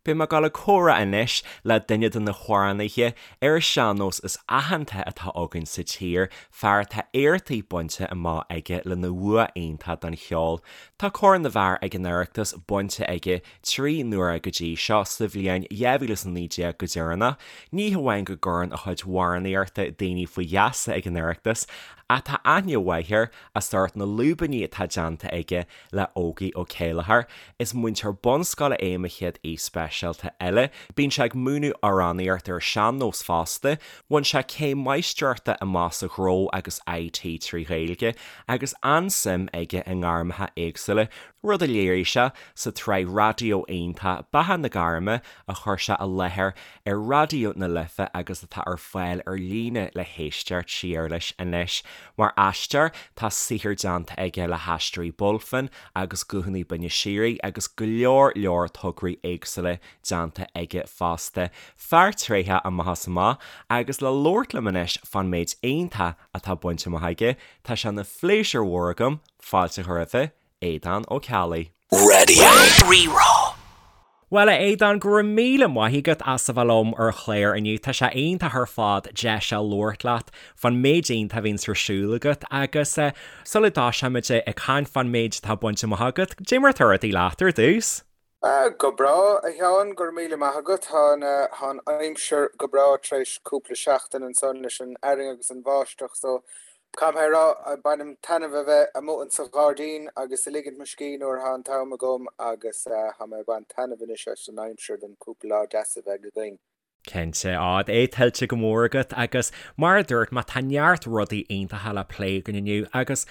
Beidh mé ag dul ag comhrá anois le duine de na hamhránaithe ar an sean-nós is aitheanta atá againn sa tír, fear atá éachtaí bainte amach aige lena bhua iontach don cheol. Tá Corn na bhFear ag an Oireachtas bainte aige 3 n-uaire go dtí seo, sa bhliain 2019 go deireanach. Ní hamháin go gcuireann a chuid amhránaíochta daoine faoi gheasa ag an Oireachtas, ach tá aithne mhaith air as ucht na lúibíní atá déanta aige le Ógie Ó Céilleachair. Is múinteoir bunscoile é mo chéad aoi speisialta eile. Bíonn sé ag múineadh amhránaíocht ar sean-nós fosta. Bhain sé céim máistreachta amach sa ghnó agus IT trí Ghaeilge agus an-suim aige i ngairmeacha éagsúla, rud a léirigh sé sa tsraith raidió iontach Beatha na Gairme a chuir sé i láthair ar Raidió na Life agus atá ar fáil ar líne le héisteacht siar leis anois. Mar aisteoir, tá saothar déanta aige le hAisteoirí Bulfin agus Guthanna Binne Síoraí agus go leor leor tograí éagsúla déanta aige fosta. Fear tréitheach amach is amach agus le labhairt liom anois fán méid iontach atá bainte amach aige, tá sé ina phléisiúr mhór agam fáilte a chur roimhe, Aodhán Ó Ceallaigh. Radio Rí-Rá. Bhuel, a Aodáin, go raibh míle maith agat as a bheith liom ar an chlár inniu. Tá sé iontach ar fad deis a labhairt leat fán méid iontach a bhíonns ar siúl agat agus sula dtoiseoimid ag caint fán méid atá bainte amach agat, cad é mar atá rudaí leat ar dtús? Go breá, a Sheáin, go raibh míle maith agat. Tá an aimsir go breá tar éis cúpla seachtain ansan leis an fhearthainn agus an bháisteach so Caithfidh mé a rá, bainim taitneamh a bheith amuigh insa ghairdín agus ag ligint mo scíth nuair atá an t-am agam agus tá mé ag baint taitneamh anois as an aimsir don cúpla lá deas a bheidh againn. Cinnte, á, é tuillte go mór agat agus mar a dúirt mé tá neart rudaí iontacha le plé againn inniu agus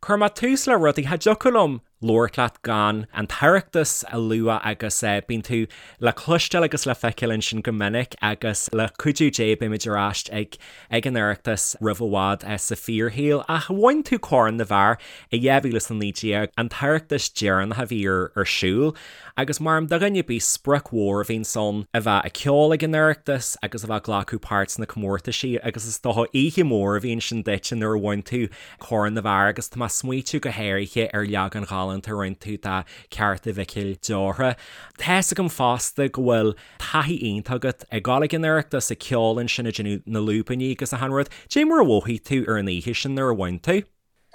cuirfidh mé tús le rudaí, cha dtiocfadh liom labhairt leat gan an tOireachtas a lua agus bíonn tú le cloisteáil agus le feiceáil ansin go minic agus le cuidiú Dé beimid ar ais ag ag an Oireachtas roimh i bhfad sa fíorshaol. Ach bhain tú Corn na bhFear i 2019, an tOireachtas deireanach a bhí ar ar siúl agus mar do dhuine ar bith sprioc mhór a bhíonns ann a bheith ag ceol ag an Oireachtas agus a bheith ag glacadh páirt sna comórtaisí agus is dócha oíche mhór a bhí ansin duit nuair a bhain tú Corn na bhFear agus tá mé ag smaoitiú go háirithe ar leagan ghalánta a rinne tú de Ceárta Mhicil Deortha. Tá's agam fosta go bhfuil taithí iontach agat ag dul ag an Oireachtas, ag ceol ansin, ag déanamh na lúibíní agus achan rud. Cad é mar a mhothaigh tú ar an oíche sin nuair a bhain tú?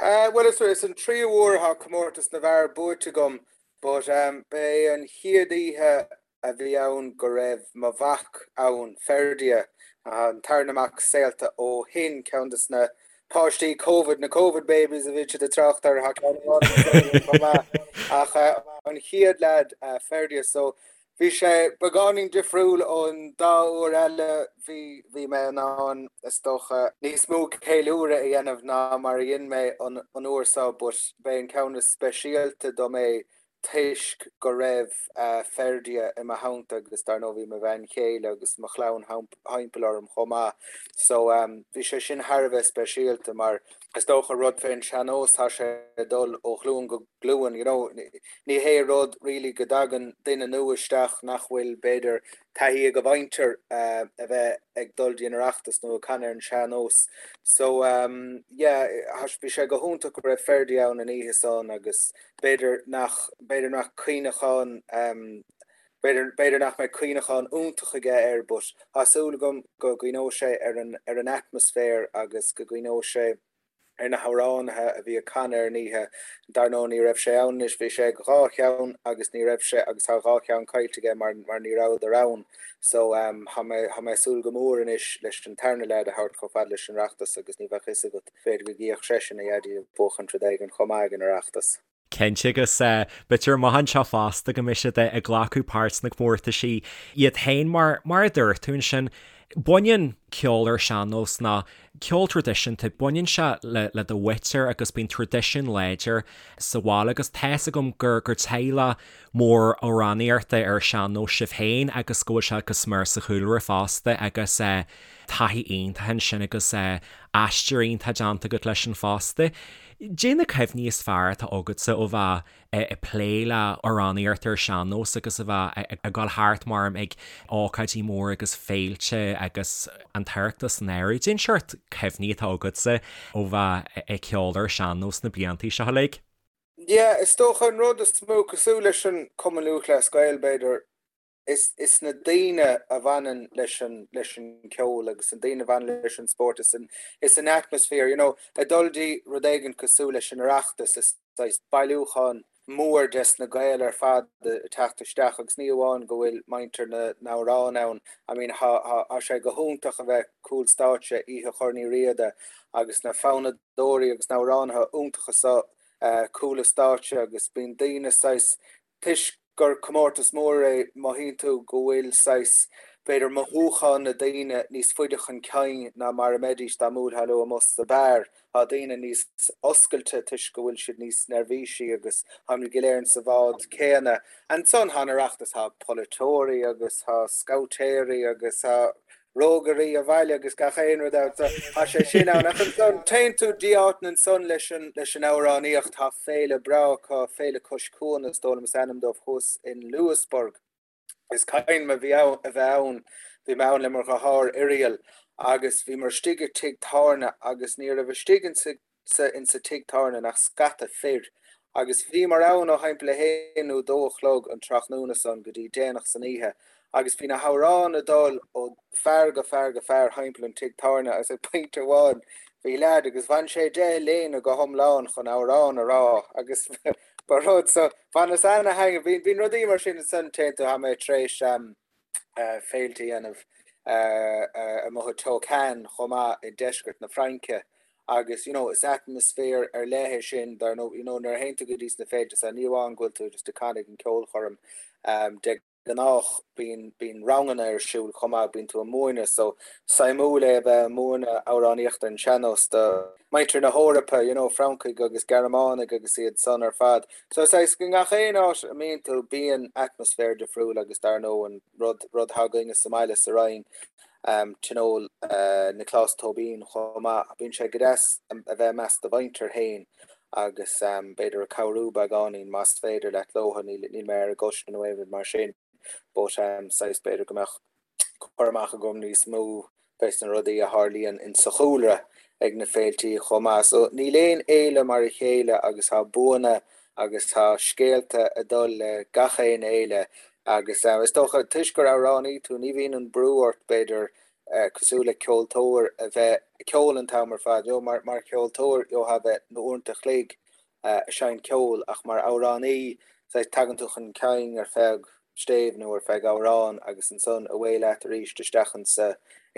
Bhuel is an tríú huair atá comórtas na bhfear buaite agam but ba é an chéad oíche a bhí ann go raibh mo mhac ann, Ferdia, an tarna mac saolta ó shin, ceann de na páistí Covid, na Covid babies a bhí siad ag trácht air, tá ceann amháin sa saol chomh maith, ach an chéad leaid, Ferdia, so bhí sé beagáinín difriúil ón dá uair eile, bhí, bhí mé in ann, is dócha, níos mó ceiliúradh a dhéanamh ná mar a dhein mé an uair seo, but b'é an ceann is speisialta dom é toisc go raibh Ferdia i mo theannta agus dar ndóigh bhí mo bhean chéile agus mo chlann thimpeall orm chomh maith so bhí sé sin thar a bheith speisialta mar is dócha rud fén sean-nós tá sé ag dul ó ghlúin go glúin you know ní hé rud really go dtagann duine nua isteach nach bhfuil b'fhéidir taithí ag a mhuintir a bheith ag dul dtí an Oireachtas nó ag canadh ar an sean-nós. So yeah, bhí sé go hiontach go raibh Ferdia ann an oíche san agus b'fhéidir nach, b'fhéidir nach cuimhneachán, b'fhéidir, b'fhéidir nach mbeidh cuimhneachán iontach aige air but tá súil agam go gcuimhneoidh sé ar an, ar an atmaisféar agus go gcuimhneoidh sé ar na hamhránaithe a bhí ag canadh ar an oíche. Dar ndóigh ní raibh sé ann anois, bhí sé ag dhá cheann agus ní raibh sé agus tá dhá cheann caillte aige mar mar ní rabhadar ann. So tá mé tá mé ag súil go mór anois leis an tarna leaid a thabhairt chomh fada leis an Oireachtas agus ní bheadh fhios agat, b'fhéidir go gcífeadh seisean a dhaidí ag buachaint rud éigin chomh maith ag an Oireachtas. Cinnte agus b'fhéidir amach anseo fosta go mbeidh siad ag glacadh páirt sna comórtaisí iad féin mar, mar a dúirt tú ansin, baineann ceol ar sean-nós ná ceol traidisiúnta, baineann sé le, le do mhuintir agus bíonn traidisiún láidir sa bhaile agus tá's agam gur, gur teaghlach mór amhránaíochta ar sean-nós sibh féin agus go bhfuil sé go smior sa chúlra fosta agus taithí iontach ansin agus aistear iontach déanta agat leis sin fosta. Cad é na cuimhní is fearr atá agatsa ó bheith ag plé le amhránaíocht ar sean-nós agus a bheith ag dul thart mar ag ócáidí móra agus féilte agus an tOireachtas san áireamh. Cad é an seort cuimhní atá agatsa ó bheith ag ceol ar sean-nós na blianta seo uilig? Yeah, is dócha an rud is mó, cosúil leis an Cumann Lúthchleas Gael b'fhéidir, Is is na daoine a bhaineann leis an leis an ceol agus an daoine a bhaineann leis an spórt is an is an atmosphere, you know, ag dul dtí rud éigin cosúil leis an Oireachtas, is saghas bailiúchán mór des na Gaeil ar fad ag teacht isteach agus ní amháin go bhfuil muintir na n-amhrán ann, I mean thá thá sé go hiontach a bheith cúl stáitse oíche Chorn Uí Riada agus na fonnadóirí agus na hamhránaithe iontacha so cúl an stáitse agus bíonn daoine saghas Toisc gur comórtas mór é, mothaíonn tú go bhfuil saghas, b'fhéidir, mothúcháin na daoine níos faide chun cinn ná mar a mbeidís dá mbuailfeá leo amuigh sa beár. Tá daoine níos oscailte toisc go bhfuil siad níos neirbhísí agus táimid go léir insa bhád céanna. Ansan tá an Oireachtas, tá polaiteoirí agus tá scabhtéirí agus tá rógairí an bhaile agus gach aon rud ann so tá sé sin ann. Ach ansan téann tú dtí áiteanna ansan leis an leis an amhránaíocht, tá féile breá acu, Féile Cois Cuan is dóigh liom is ainm dóibh thuas in Louisburgh. Is cuimhin liom a bhí ann a bheith ann, bhí mé ann le mo dheartháir Irial agus bhíomar istigh i tigh tábhairne agus ní raibh istigh insa sa insa tigh tábhairne ach scata fir agus bhíomar ann ó thimpeall a haon nó dó a chlog an tráthnóna san go dtí déanach san oíche agus bhí na hamhráin ag dul ó fear go fear go fear thimpeall an tigh tábhairne agus ag pointe amháin bhí leaid agus bhain sé de a léine go hiomlán chun amhrán a rá agus ba rud so bhaineas ana-thaitneamh bhí bíonn rudaí mar sin ansan téann tú tá mé tar éis féilte a dhéanamh amuigh i Tocane chomh maith i deisceart na Fraince agus you know is atmaisféar ar leith é sin dar ndóigh you know nuair a théann tú go dtí sna féilte so ní amháin go bhfuil tú just ag canadh ag an ceolchoirm de gnách bíonn bíonn ranganna ar siúl chomh maith bíonn tú ag múineadh so suimiúil é a bheith ag múineadh amhránaíocht ar an sean-nós do muintir na hEorpa you know Francaigh agus Gearmánaigh agus iad san ar fad. So saghas i ngach aon áit a mbíonn tú bíonn atmaisféar difriúil agus dar ndóigh an rud rud atá againne sa mbaile sa Rinn Tionól Nioclás Tóibín chomh maith. Bíonn sé go deas a bheith i measc do mhuintir féin agus b'fhéidir ag cabhrú beagáinín más féidir leat leotha, níl níl mé ar an gcoiste nó aon rud mar sin but saghas b'fhéidir go mbeadh cur amach agam níos mó fés na rudaí a tharlaíonn insa chúlra ag na féiltí chomh maith. So níl aon fhéile mar a chéile agus tá buanna agus tá scéalta ag dul le gach aon fhéile agus is dócha toisc gur amhránaí tú ní bhíonn an brú ort b'fhéidir cosúil le ceoltóir a bheith ag ceol an t-am ar fad. You know, mar mar cheoltóir gheofá a bheith na uaireanta a chloig ag seinnt ceoil ach mar amhránaí saghas tagann tú chun cinn ar feadh stéibh nó ar feadh amhrán agus ansan away leat arís isteach insa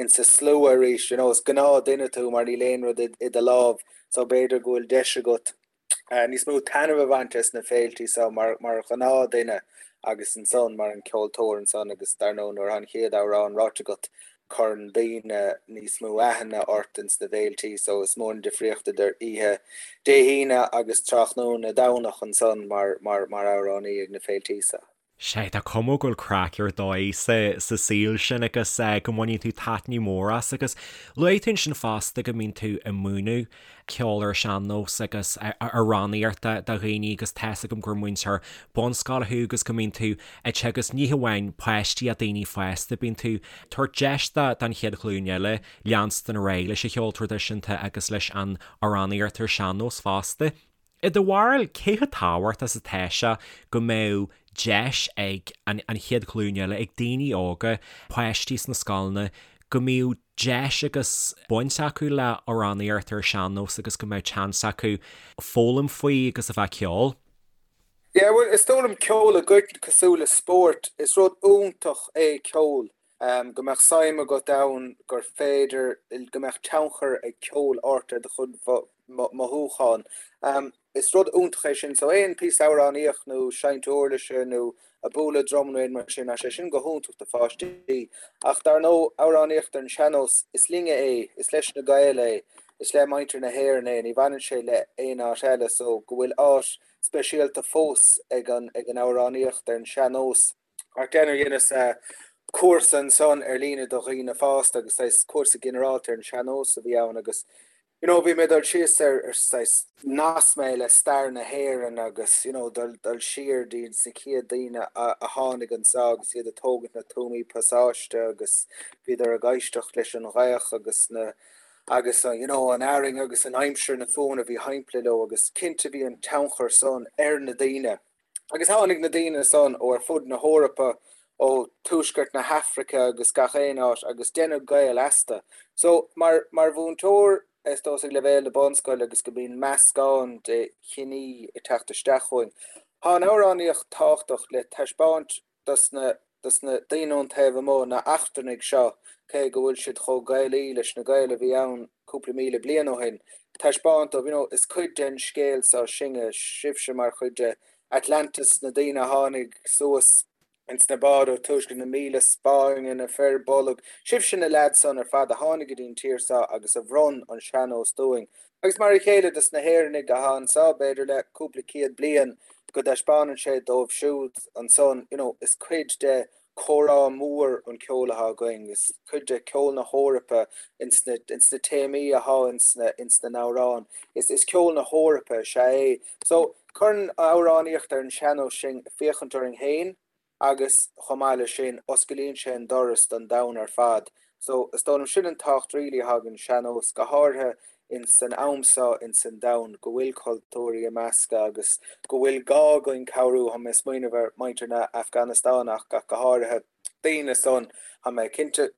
insa slua arís you know is gnáth duine tú mar níl aon rud i do lámh so b'fhéidir go bhfuil deis agat níos mó taitneamh a bhaint as na féiltí so mar mar ghnáth duine agus ansan mar an ceoltóir ansan agus dar ndóigh nuair atá an chéad amhrán ráite agat cuireann daoine níos mó aithne ort ins na féiltí so is mór an difríocht idir oíche Dé hAoine agus tráthnóna Domhnach ansan mar mar mar amhránaí ag na féiltí so. Sea, tá cuma go bhfuil craic ar dóigh sa sa saol sin agus go mbaineann tú taitneamh mór as agus luaigh tú ansin fosta go mbíonn tú ag múineadh ceol ar sean-nós agus amhránaíocht do dhaoine agus tá's agam gur múinteoir bunscoile thú agus go mbíonn tú ag teagasc ní hamháin páistí ach daoine fásta, bíonn tú ag tabhairt deis don chéad ghlúin eile leanstan ar aghaidh leis an cheol traidisiúnta agus leis an amhránaíocht ar sean-nós fosta. I do bharúil, cé chomh tábhachtach is atá sé go mbeadh deis ag an chéad ghlúin eile, ag daoine óga, páistí sna scoileanna, go mbeadh deis agus baint acu le amhránaíocht ar sean-nós agus go mbeadh seans acu foghlaim faoi agus a bheith ag ceol? Yeah, bhuel, is dóigh liom ceol i gcoitinne cosúil le spórt, is rud iontach é ceol, go mbeadh suim agat ann, gur féidir, go mbeadh tionchar ag ceol ort ar do chuid mothúchán. Is rud iontach é sin. So aon píosa amhránaíocht nó seinnt uirlise nó ag bualadh drum nó aon mar sin, tá sé sin go hiontach do pháistí. Ach dar ndóigh, amhránaíocht ar an sean-nós, is linne é, is leis na Gaeil é, is le muintir na hÉireann é, ní bhaineann sé le aon áit eile. So go bhfuil áit speisialta fós ag an ag an amhránaíocht ar an sean-nós. Ach déanamh dheineas cúrsa ansan ar líne do dhaoine fásta agus saghas cúrsa ginearálta ar an sean-nós a bhí ann agus you know bhí mé ag dul síos ar ar saghas nasc mé le stair na hÉireann agus you know dul dul siar dtí na chéad daoine a a tháinig anso agus iad ag tógaint na tuamaí pasáiste agus bhíodar ag éisteacht leis an ghaoth agus na agus you know an arraing agus an aimsir na fuaimeanna a bhí thimpeall leo agus cinnte bhí an tionchar san ar na daoine. Agus tháinig na daoine san ó ar fud na hEorpa. Ó tuaisceart na hAfraice agus gach aon áit agus deineadh Gael astu. So, mar, mar mhúinteoir, is dócha ag leibhéal na bunscoile agus go mbíonn meascán de chiní ag teacht isteach chugainn, tá an amhránaíocht tábhachtach le taispeáint dos na, dos na daoine ón taobh amuigh, na eachtrannaigh seo, cé go bhfuil siad chomh Gaelaí leis na Gaeil a bhí ann cúpla míle bliain ó shin, taispeáint dóibh, you know, is cuid den scéal seo sinne, sibhse mar chuid de Atlantis, na daoine a tháinig suas ins na báid ó tuaisceart na míle Spáinne, na fir bolg, sibhse na leaids san ar fad a tháinig go dtí an tír seo agus a bhronn an sean-nós dúinn. Agus mar a chéile dos na hÉireannaigh atá anso, b'fhéidir le cúpla céad bliain, go dtaispeánann sé dóibh siúd ansan, you know, is cuid de chomhrá mór an ceol atá againn, is cuid de ceol na hEorpa ins na, ins na téamaí atá ins na, ins na n-amhráin. Is, is ceol na hEorpa is ea é. So, cuireann an amhránaíocht ar an sean-nós sinn ag féachaint orainn féin agus chomh maith leis sin, osclaíonn sé an doras don domhan ar fad. So, is dóigh liom sin an tábhacht really atá ag an sean-nós, go háirithe ins an am seo ins an domhan, go bhfuil cultúirí ag meascadh agus go bhfuil gá againn cabhrú, tá mé ag smaoineamh ar muintir na Afganastáine ach go háirithe, daoine san, tá mé cinnte,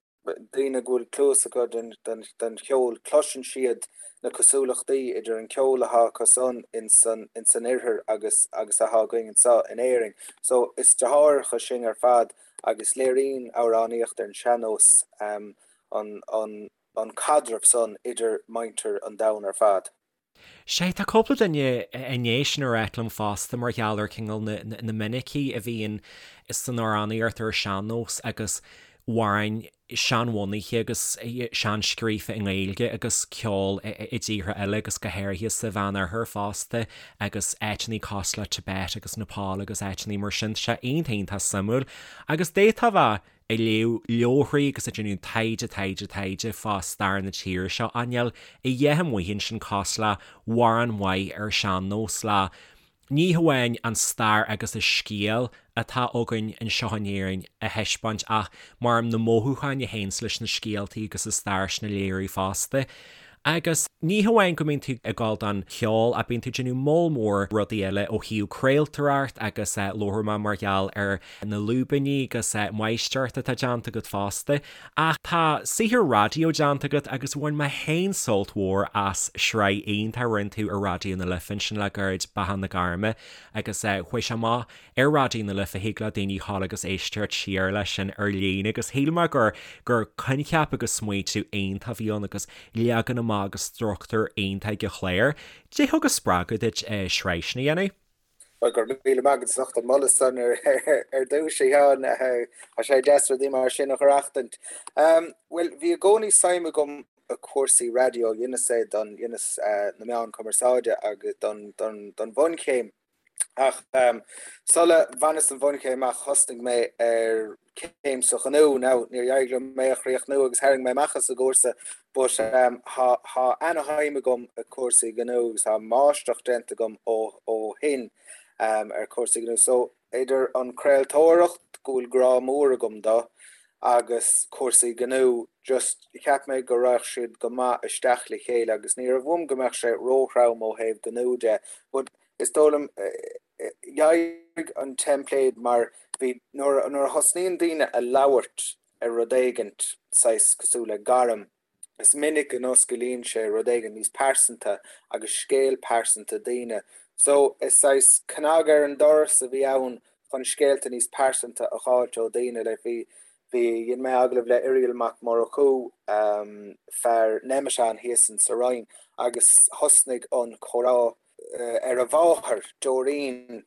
daoine go bhfuil cluas acu don cheol, cloiseann siad na cosúlachtaí idir an ceol atá acu san ins an ins an oirthear agus agus atá againn anseo in Éirinn. So is deartháireacha sinn ar fad agus léiríonn amhránaíocht ar an sean-nós an an an caidreamh san idir muintir an domhain ar fad. Sea, tá cúpla duine i ndiaidh sin a ráit liom fosta mar gheall ar cineál na minicí a bhíonn san amhránaíocht ar an sean-nós agus amhráin seanbhunaithe agus seanscríofa i nGaeilge agus ceol i dtíortha eile agus go háirithe sa Mheánoirthear fosta agus áiteanna cosúil le Tibet agus Nepal agus áiteanna mar sin. Tá sé iontach iontach suimiúil agus d'fhéadfá a bheith ag léamh leabharthaí agus ag déanamh taighde, taighde, taighde fá stair na tíre seo, ach níl a dhath amuigh ansin cosúil le hamhrán maith ar sean-nós le ní hamháin an stair agus an scéal atá againn anseo in Éirinn a thaispeáint ach mar na mothúcháin a théanns leis na scéaltaí agus an stair sin a léiriú fosta. Agus ní hamháin go mbíonn tú ag gabháil don cheol ach bíonn tú ag déanamh moll mór rudaí eile ó thaobh craoltóireacht agus labharfaidh mé mar gheall ar na lúibíní agus máistreacht atá déanta agat fosta. Ach tá saothar raidió déanta agat agus bhain mé féin sult mhór as sraith iontach a rinne tú ar Raidió na Life ansin le gairid, Beatha na Gairme, agus chuaigh sé amach ar Raidió na Life, thig le daoine ghabháil agus éisteacht siar leis sin ar líne agus shíl mé gur gur coincheap agus smaoitiú iontach a bhí ann agus leagan amach agus struchtúr iontach ag an chlár. Cad é thug an spreagadh duit sraith sin a dhéanamh? Bhuel, go raibh míle maith agat as ucht an moladh san ar dtús, a Sheáin. Tá sé deas rudaí mar sin a aireachtaint. Bhuel, bhí i gcónaí suim agam i cúrsaí raidió, dheineas é don, dheineas na meáin cumarsáide agus don, don, don bhunchéim. Ach sula bhaineas an bhunchéim amach thosnaigh mé ar céim sa ghnó. Now, níor éirigh liom é a chríochnú agus tharraing mé amach as an gcúrsa but tá tá ana-shuim agam i cúrsaí gnó agus tá máistreacht déanta agam ó ó shin ar cúrsaí gnó. So, idir an craoltóireacht, go bhfuil grá mór agam do, agus cúrsaí gnó, just cheap mé go raghadh siad go maith isteach le chéile agus ní raibh uaim go mbeadh sé róthrom ó thaobh gnó de but is dóigh liom D'éirigh an teimpléad mar bhí nuair a thosnaíonn daoine a labhairt ar rud éigint, saghas cosúil le gairm, is minic go n-osclaíonn sé rud éigin níos pearsanta agus scéal pearsanta daoine. So is saghas cnag ar an doras a bhí ann chun scéalta níos pearsanta a dh'fháilt ó daoine. Like bhí, bhí, dhein mé agallamh le Irial Mac Murchú, fear Nemeton thíos in sa Rinn agus thosnaigh an comhrá ar a mháthair, Doreen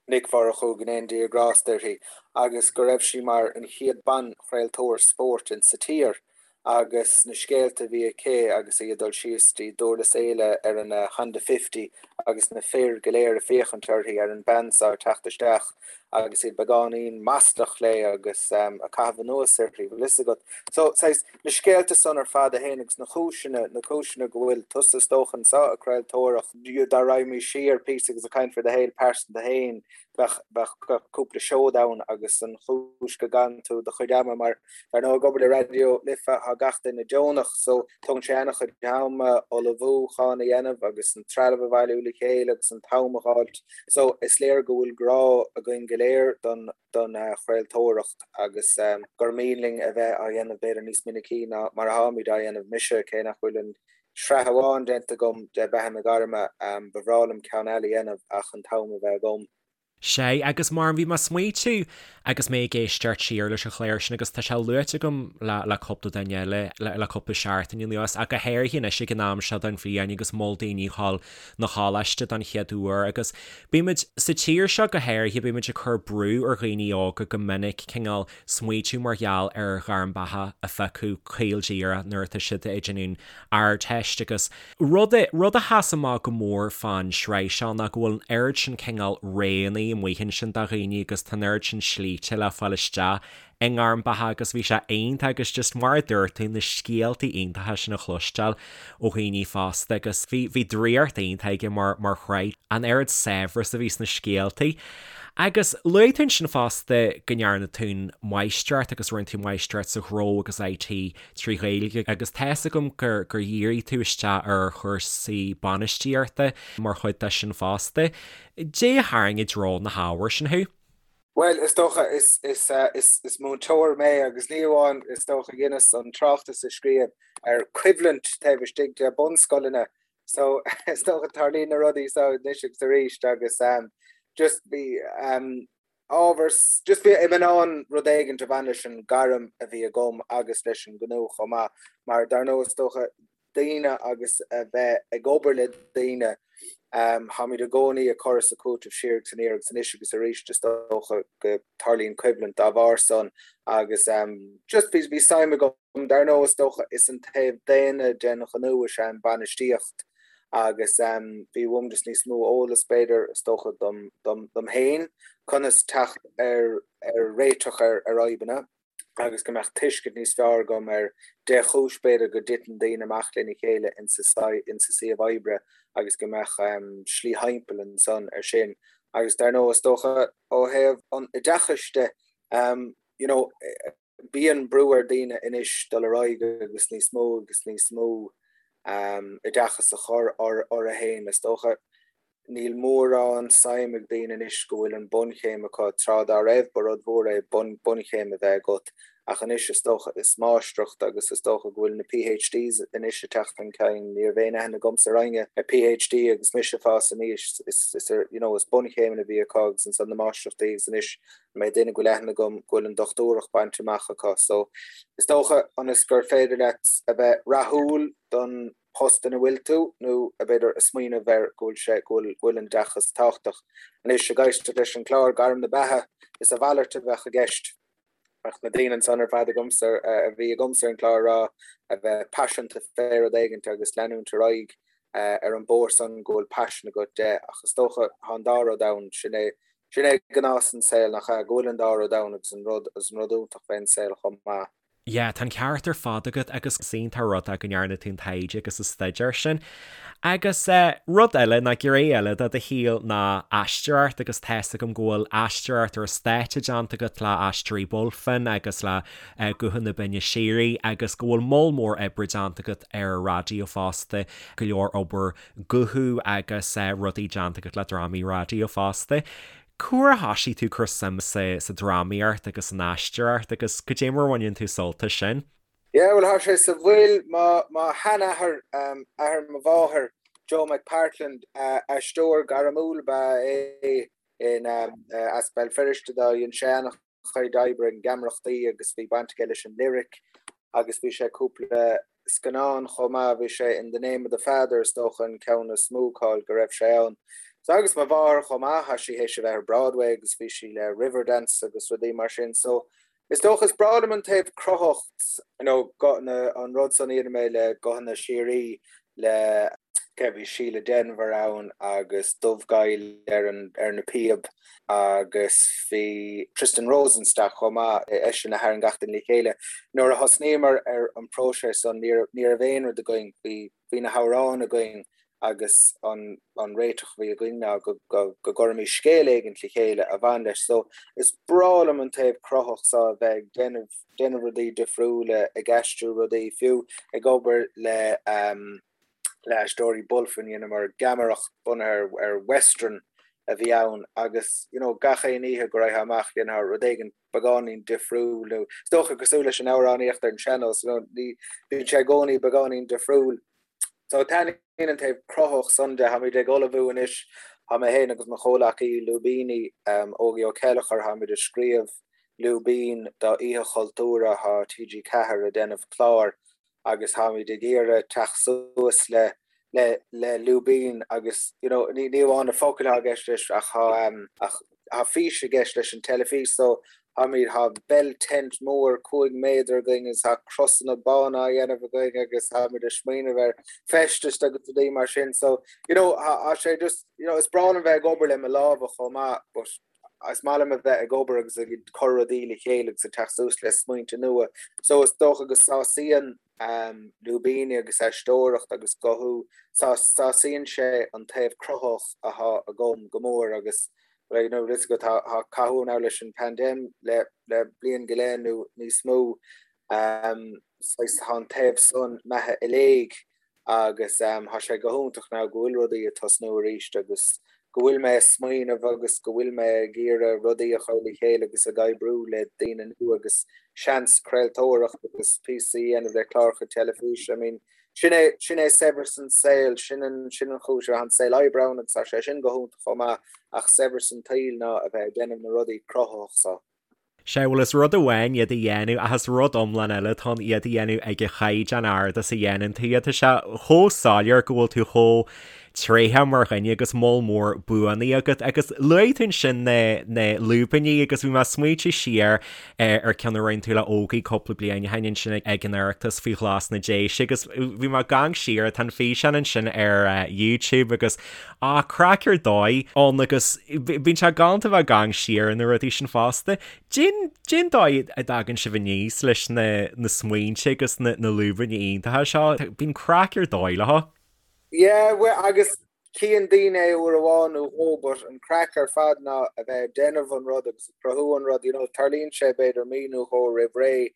Nic Mhurchú, go ndéana Dia grásta uirthi, agus go raibh sí mar an chéad ban-chraoltóir spóirt in sa tír agus na scéalta a bhí aici agus í ag dul síos dtí Dúrlas Éile ar an Honda Fifty agus na fir go léir ag féachaint uirthi, ar an bean seo ag teacht isteach agus iad beagáinín maslach léi agus ag caitheamh anuas uirthi, bhfuil fhios agat. So, saghas, na scéalta san ar fad a théann agus na cúiseanna, na cúiseanna go bhfuil tusa is dócha anseo ag craoltóireacht, dá raghaimís siar píosa agus ag caint faoi do shaol pearsanta féin, bheadh, bheadh cúpla seod ann agus an chúis go gcaitheann tú do chuid ama mar dar ndóigh ag obair le Raidió Life tá gach duine deonach so tógann sé an-chuid ama ullmhúchán a dhéanamh agus an trealamh a bhailiú le chéile agus an t-am a dh'fháilt so is léir go bhfuil grá againn go léir. léir don don chraoltóireacht agus gur mian linn a bheith á dhéanamh b'fhéidir níos minicí ná mar atáimid á dhéanamh. Mise, cé nach bhfuil an sraith amháin déanta agam de Beatha na Gairme, ba bhreá liom ceann eile a dhéanamh ach an t-am a bheith agam. Sea, agus mar bhí mé ag smaoitiú agus mé ag éisteacht siar leis an chlár sin agus tá sé luaite agam le le cúpla duine eile le le cúpla seachtain anuas ach go háirithe anois ag an am seo den bhliain agus mol daoine ag dul 'na choláiste don chéad uair agus bímid, sa tír seo go háirithe, bímid ag cur brú ar dhaoine óga go minic cineál smaoitiú mar gheall ar ghairm beatha a phiocadh caol díreach nuair atá siad ag déanamh an Ardteist agus rud a, rud a sheas amach go mór fán sraith seo ná go bhfuil an oiread sin cineál roghanna amuigh ansin do dhaoine agus tá an oiread sin slíte le fáil isteach i ngairm beatha agus bhí sé iontach agus just mar a dúirt tú na scéaltaí iontacha sin a chloisteáil ó dhaoine fásta agus bhí, bhí draíocht iontach aige mar, mar shraith, an oiread saibhreas a bhí sna scéaltaí. Agus luaigh tú ansin fosta go ndearna tú an máistreacht agus rinne tú máistreacht sa ghnó agus IT 3 Ghaeilge agus tá's agam gur gur dhírigh tú isteach ar chúrsaí bainistíochta mar chuid de sin fosta. Dé a tharraing i dtreo na hábhair sin thú? Bhuel, is dócha, is, is, is, is múinteoir mé agus ní amháin, is dócha, dheineas an tráchtas a scríobh ar choimhlint taobh istigh de bunscoileanna so is dócha tarlaíonn na rudaí so anois agus arís agus um, just bhí um, ábhar, just bhí mé in ann rud éigint a bhain leis an gairm a bhí agam agus leis an gnó chomh maith, mar dar ndóigh is dócha daoine agus a bheith ag obair le daoine, táimid i gcónaí ag cur is ag cúiteamh siar agus aniar agus anois agus arís is dócha go tarlaíonn coimhlint dá bharr san agus just bhí bhí suim agam. Dar ndóigh, is dócha, is an taobh daonna den ghnó is ea an bainistíocht agus bhí uaim just níos mó eolas, b'fhéidir, is dócha, dom dom féin, conas teacht ar ar réiteach ar ar fhadhbanna agus go mbeadh tuiscint níos fearr agam ar dé chúis, b'fhéidir, go dtiteann daoine amach lena chéile insa insa suíomh oibre agus go mbeadh slí thimpeall ansan ar sin. Agus dar ndóigh, is dócha, ó thaobh an oideachais de, you know, Bíonn brú ar daoine anois dul ar aghaidh agus níos mó agus níos mó oideachas a chur orthu féin. Is dócha, níl mórán suim ag daoine anois go bhfuil an bunchéim acu. Tráth dá raibh, ba rud mhór é bunchéim a bheith agat, ach anois is dócha is máistreacht agus is dócha go bhfuil na PhDs anois ag teacht chun cinn. Ní raibh aon aithne agamsa ar éinne le PhD agus mise ag fás aníos. Is, you know, is bunchéimeanna a bhí acu agus ansan na máistreachtaí agus anois An méid duine go bhfuil aithne agam go bhfuil an dochtúireacht bainte amach acu. So, is dócha, ionas gur féidir leat a bheith rathúil don post ina bhfuil tú, nó b'fhéidir a smaoineamh air go bhfuil sé, go bhfuil, go bhfuil an oideachas tábhachtach. Anois, ag éisteacht leis an chlár Gairm na Beatha, is a mhalairt a bheadh i gceist. Bheadh na daoine ansan ar fad agamsa, a bhí agamsa ar an chlár a rá, a bheith paiseanta fé rud éigint agus leanúint ar aghaidh ar an bóthar san go bhfuil paisean agat de. Ach is dócha, tá an dá rud ann, sin é Sin é gnás an saoil, nach ea? Go bhfuil an dá rud ann agus an rud agus an rud iontach fén saol chomh maith. Yeah, tá an ceart ar fad agat agus is iontach an rud é go ndearna tú an taighde agus an staidéar sin. Agus eh, rud eile, ná gné eile de do shaol ná aisteoireacht agus tá's agam go bhfuil aisteoireacht ar an stáitse déanta agat le Aisteoirí Bulfin agus le eh, Guthanna Binne Síoraí agus go bhfuil moll mór oibre déanta agat ar an raidió fosta, go leor obair guthú agus rudaí déanta agat le drámaí raidió fosta. Cá huair a thoisigh tú ag cur suim sa drámaíocht agus san aisteoireacht agus goidé mar a bhaineann tú sult as sin? Yeah, bhuel, tá sé sa bhfuil. Mo mo sheanathair, athair mo mháthair, Joe McPartland, aisteoir gairmiúil ab ea é in as Béal Feirste dó. Dhein sé ana chuid oibre i ngeamaireachtaí agus bhí baint aige leis an Lyric agus bhí sé cúpla scannán chomh maith, bhí sé in The Name of the Father is dócha an ceann is mó cáil go raibh sé ann. So agus mo mháthair chomh maith, tá sí théis a bheith ar Broadway agus bhí sí le Riverdance agus rudaí mar sin so is dócha is breá liom an taobh cruthaitheach, you know, na, an rud san a dhéanamh mé le Guthanna Síoraí le cé bhí Síle Denvir ann agus Dubhghaill ar an ar na píob agus bhí Tristan Rosenstock chomh maith, eisean a tharraing gach duine le chéile. Nuair a thosnaíomar ar an próiseas san ní ní raibh aon rud againn, bhí bhí na hamhráin againn agus an an réiteach a bhí againn ná go go go gcuirfimís scéal éigint le chéile a bhain leis. So is breá liom an taobh cruthaitheach so a bheith ag déanamh déanamh rudaí difriúla, ag aistriú rudaí, fiú ag obair le le Aisteoirí Bulfin, dheineamar geamaireacht bunaithe ar western. a bhí ann agus you know gach aon oíche go raghfá amach dhéanfá rud éigin beagáinín difriúil nó is dócha cosúil leis an amhránaíocht ar an sean-nós you know ní bíonn sé i gcónaí beagáinín difriúil. So taitníonn an taobh cruthaitheach san de, táimid ag ullmhú anois, tá mé féin agus mo chomhleacaí lúibíní, Ógie Ó Céilleachair, táimid ag scríobh lúibín do Oíche Chultúir, tá TG4 ag déanamh clár agus táimid ag iarraidh teacht suas le le le lúibín agus you know ní ní amháin na focail atá i gceist leis ach tá ach tá fís i gceist leis an teilifís so táimid tá bell tent mór 5 méadar againn agus tá crosanna bána á dhéanamh againn agus táimid ag smaoineamh ar feistis agus rudaí mar sin so you know tá sé just you know is breá liom bheith ag obair le mo lámha chomh maith but is maith liom a bheith ag obair agus ag cur rudaí le chéile agus ag teacht suas le smaointe nua. So is dócha go sásaíonn lúibíní agus aisteoireacht agus guthú, sásaíonn sé an taobh cruthaitheach athá agam go mór agus you know is go tá cathú now leis an pandemic le le bliain go leith nó níos mó saghas tá an taobh san imithe i léig agus tá sé go hiontach now go bhfuil rudaí ag tosnú arís agus go bhfuil mé ag smaoineamh agus go bhfuil mé ag iarraidh rudaí a chur le chéile agus ag oibriú le daoine nua agus seans craoltóireacht agus píosaí a dhéanamh le cláracha teilifíse. I mean, sin é, sin é saibhreas an saoil, sin an, sin an chúis, tá an saol oibre ann agus tá sé sin go hiontach chomh maith ach saibhreas an tsaoil ná a bheith ag déanamh na rudaí cruthaitheach so. Sea, bhuel is rud amháin iad a dhéanamh ach is rud iomlán eile atá ann iad a dhéanamh ag an chaighdeán ard is a dhéanann tú iad. Tá sé chomh soiléir go bhfuil tú chomh tréitheach mar dhuine agus moll mór buanna agat agus luaigh tú ansin na na lúibíní agus bhí mé ag smaointiú siar ar ceann a rinne tú le Ógie cúpla bliain ó shin ansin ag an Oireachtas faoi ghlas na Déise agus bhí mé ag amharc siar, tá an físeán ansin ar YouTube agus Ah, craic ar dóigh ann agus bíonn sé galánta bheith ag amharc siar ar na rudaí sin fosta. Cén, cén dóigh a dtagann sibh aníos leis na, na smaointe agus na, na lúibíní iontacha seo? Bíonn craic ar dóigh leo. Yeah, well, agus cíonn daoine é uair amháin nó dhó, but an craic ar fad ná a bheith ag déanamh an rud agus ag cruthú an rud, you know, tarlaíonn sé b'fhéidir mí nó dhó roimh ré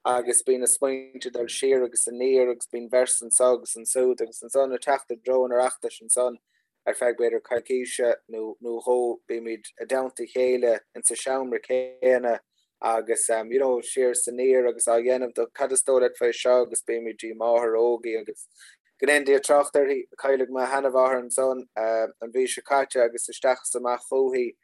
agus bíonn na smaointe ag dul siar agus aniar agus bíonn véarsa anso agus ansúd agus ansan ag teacht i dtreo an Oireachtais ansan ar feadh b'fhéidir coicíse nó nó dhó bímid i dteannta a chéile insa seomra céanna agus um, you know, siar is aniar agus á dhéanamh do cad is dóigh leat fé seo agus bímid dtí máthair Ógie agus go ndéana Dia trácht uirthi, cailleadh mo sheanmháthair ansan uh, an mhí seo caite agus isteach is amach chúithi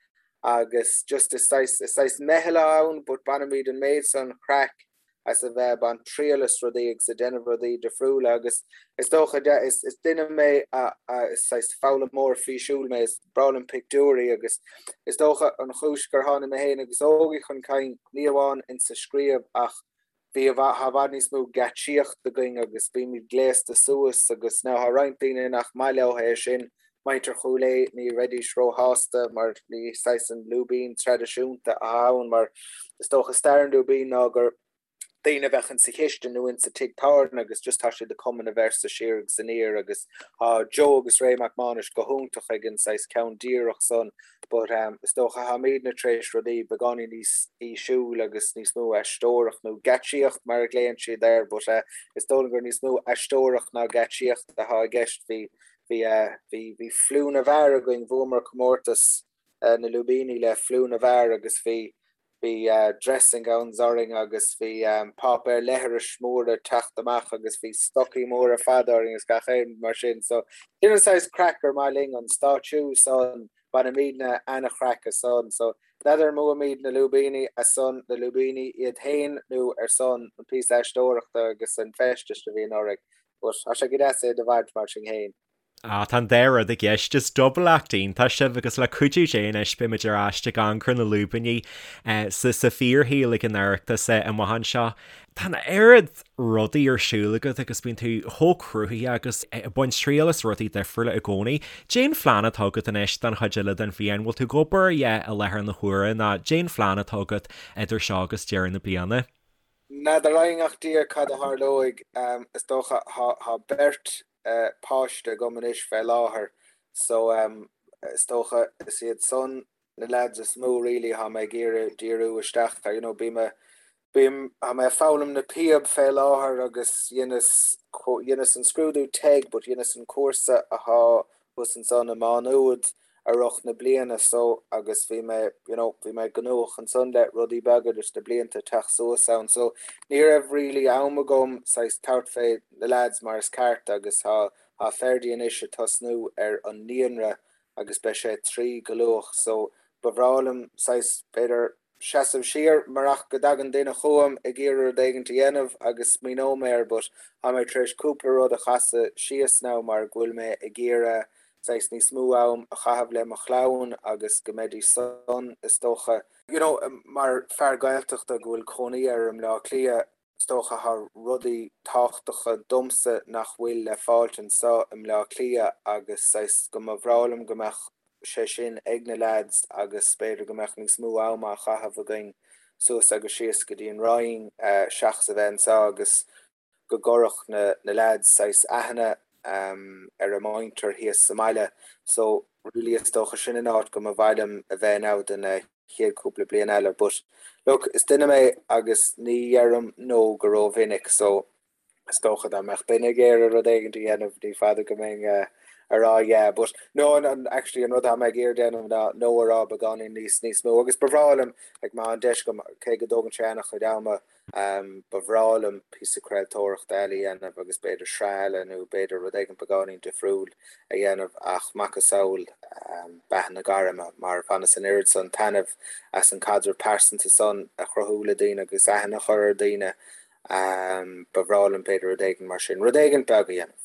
agus just is saghas, is saghas meitheal atá ann but bainimid an méid san craic as a bheith ag baint triail as rudaí agus ag déanamh rudaí difriúla agus is dócha de, is, is duine mé a, a, is saghas foghlaimeoir físiúil mé, is breá liom pictiúirí agus is dócha an chúis gur tháinig mé féin agus Ógie chun cinn ní amháin insa scríobh ach Bhí i bhfad, tá i bhfad níos mó geáitsíocht againn agus bímid gléasta suas agus now tá roinnt daoine nach maith leo é sin, muintir Chúil Aodha ní bheidís róshásta mar ní saghas an lúibín traidisiúnta atá ann mar is dócha stair an lúibín ná gur daoine a bheadh insa chistin nó insa tigh tábhairne agus just tá siad ag cumadh na véarsa siar agus aniar agus tá Joe agus Ray Mac Mánais go hiontach ag an saghas ceann díreach san But is dócha táimidne tar éis rudaí beagáinín níos físiúil agus níos mó aisteoireacht nó geáitsíocht mar a ghlaonn siad air but is dóigh liom gur níos mó aisteoireacht ná geáitsíocht atá i gceist. Bhí bhí bhí bhí Fliú na bhFear againn, bhuamar comórtas na lúibíní le Fliú na bhFear agus bhí Bhí dressing gowns orainn agus bhí páipéar leithris mór ag teacht amach agus bhí stocaí móra fada orainn agus gach aon rud mar sin. So sin an saghas craic gur maith linn, an stáitsiú san, bainimidne ana-chraic as san. So n'fheadar an mbuaimid na lúibíní ar son na lúibíní iad féin nó ar son an píosa aisteoireachta agus an feistis a bhíonn orainn. But tá sé go deas é do bhaint mar sin féin. Ah, tá an dá rud i gceist. Is double act iontach sibh agus le cuidiú Dé anois beimid ar ais ag amharc ar na lúibíní sa sa fíorshaol ag an Oireachtas amach anseo. Tá an oiread rudaí ar siúl agat agus bíonn tú chomh cruthaitheach agus ag baint triail as rudaí difriúla i gcónaí. Cén phlean atá agat anois don chuid eile den bhliain? Bhfuil tú ag obair i láthair na huaire nó cén phlean atá agat idir seo agus deireadh na bliana? N'fheadar againn ach Dia cad a tharlóidh. Is dócha tá beirt páiste agam anois fé láthair so is dócha is iad san na lads is mó really thá mé ag iarraidh díriú isteach ar, you know, bím a, bím, thá mé ag foghlaim na píob fé láthair agus dheineas, dheineas an scrúdú TEG but dheineas an cúrsa athá thuas ansan i Má Nuad. I rith na bliana so agus bhí mé you know bhí mé gnóthach ansan le rudaí beaga leis na blianta ag teacht suas ann so ní raibh really am agam saghas tabhairt fé na lads mar is ceart agus tá tá Ferdy anois ag tosnú ar an naíonra agus beidh sé 3 go luath so ba bhreá liom saghas b'fhéidir seasamh siar marach go dtagann duine chugam ag iarraidh rud éigint a dhéanamh agus smaoineoidh mé air but tá mé tar éis cúpla rud a chasadh síos now mar go bhfuil mé ag iarraidh saghas níos mó am a chaitheamh le mo chlann agus go mbeidís san is dócha you know mar fear Gaeltachta go bhfuil cónaí air i mBleá Cliath is dócha tá rudaí tábhachtacha domsa nach bhfuil le fáilt anseo i mBleá Cliath agus saghas go mba bhreá liom go mbeadh sé sin ag na leaids agus b'fhéidir go mbeadh níos mó am á chaitheamh againn suas agus síos go dtí an Rinn seachas a bheith anseo agus go gcuirfeadh na na leaids saghas aithne ar a muintir thíos sa mbaile. So really is dócha sin an áit go mba mhaith liom a bheith now do na chéad cúpla bliain eile. But look, is duine mé agus ní dheirim no go rómhinic so Is dócha dá mbeadh duine ag iarraidh rud éigin a dhéanamh, ní fada go mbeinn ag rá yeah, but no, an, actually an rud atá mé ag iarraidh déanamh ná no a rá beagáinín níos, níos mó agus ba bhreá liom, like má tá an deis agam, cé go dtógann sé an-chuid ama, ba bhreá liom píosa craoltóireachta eile a dhéanamh agus b'fhéidir sraith eile nó b'fhéidir rud éigin beagáinín difriúil a dhéanamh ach macasamhail beatha na gairme mar bhaineas an oiread san taitneamh as an caidreamh pearsanta san a chruthú le daoine agus aithne a chur ar daoine Ba bhreá liom b'fhéidir rud éigin mar sin, rud éigin beag a dhéanamh.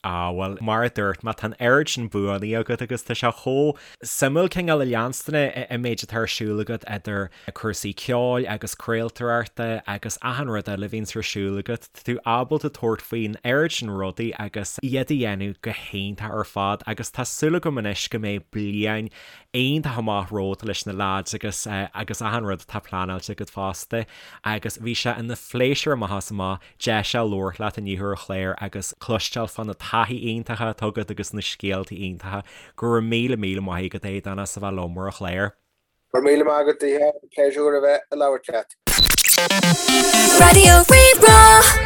Ah, bhuel, mar a dúirt mé, tá an oiread sin buanna agat agus tá sé chomh suimiúil cineál a leanstan an méid atá ar siúl agat idir cúrsaí ceoil agus craoltóireachta agus achan rud eile a bhíonns ar siúl agat. Tá tú ábalta tabhairt faoin oiread sin rudaí agus iad a dhéanamh go hiontach ar fad agus tá súil agam anois go mbeidh bliain iontach amach romhat leis na leaids agus agus achan rud atá pleanáilte agat fosta agus bhí sé ina phléisiúr amach is amach deis a labhairt leat inniu ar an chlár agus cloisteáil fá na taithí iontacha atá agat agus na scéalta iontacha. Go raibh míle míle maith agat Aodán as a bheith liom ar an chlár. Go raibh míle maith agat a Mhícheáil, pléisiúr a bheith ag labhairt leat. Raidió Rí-Rá.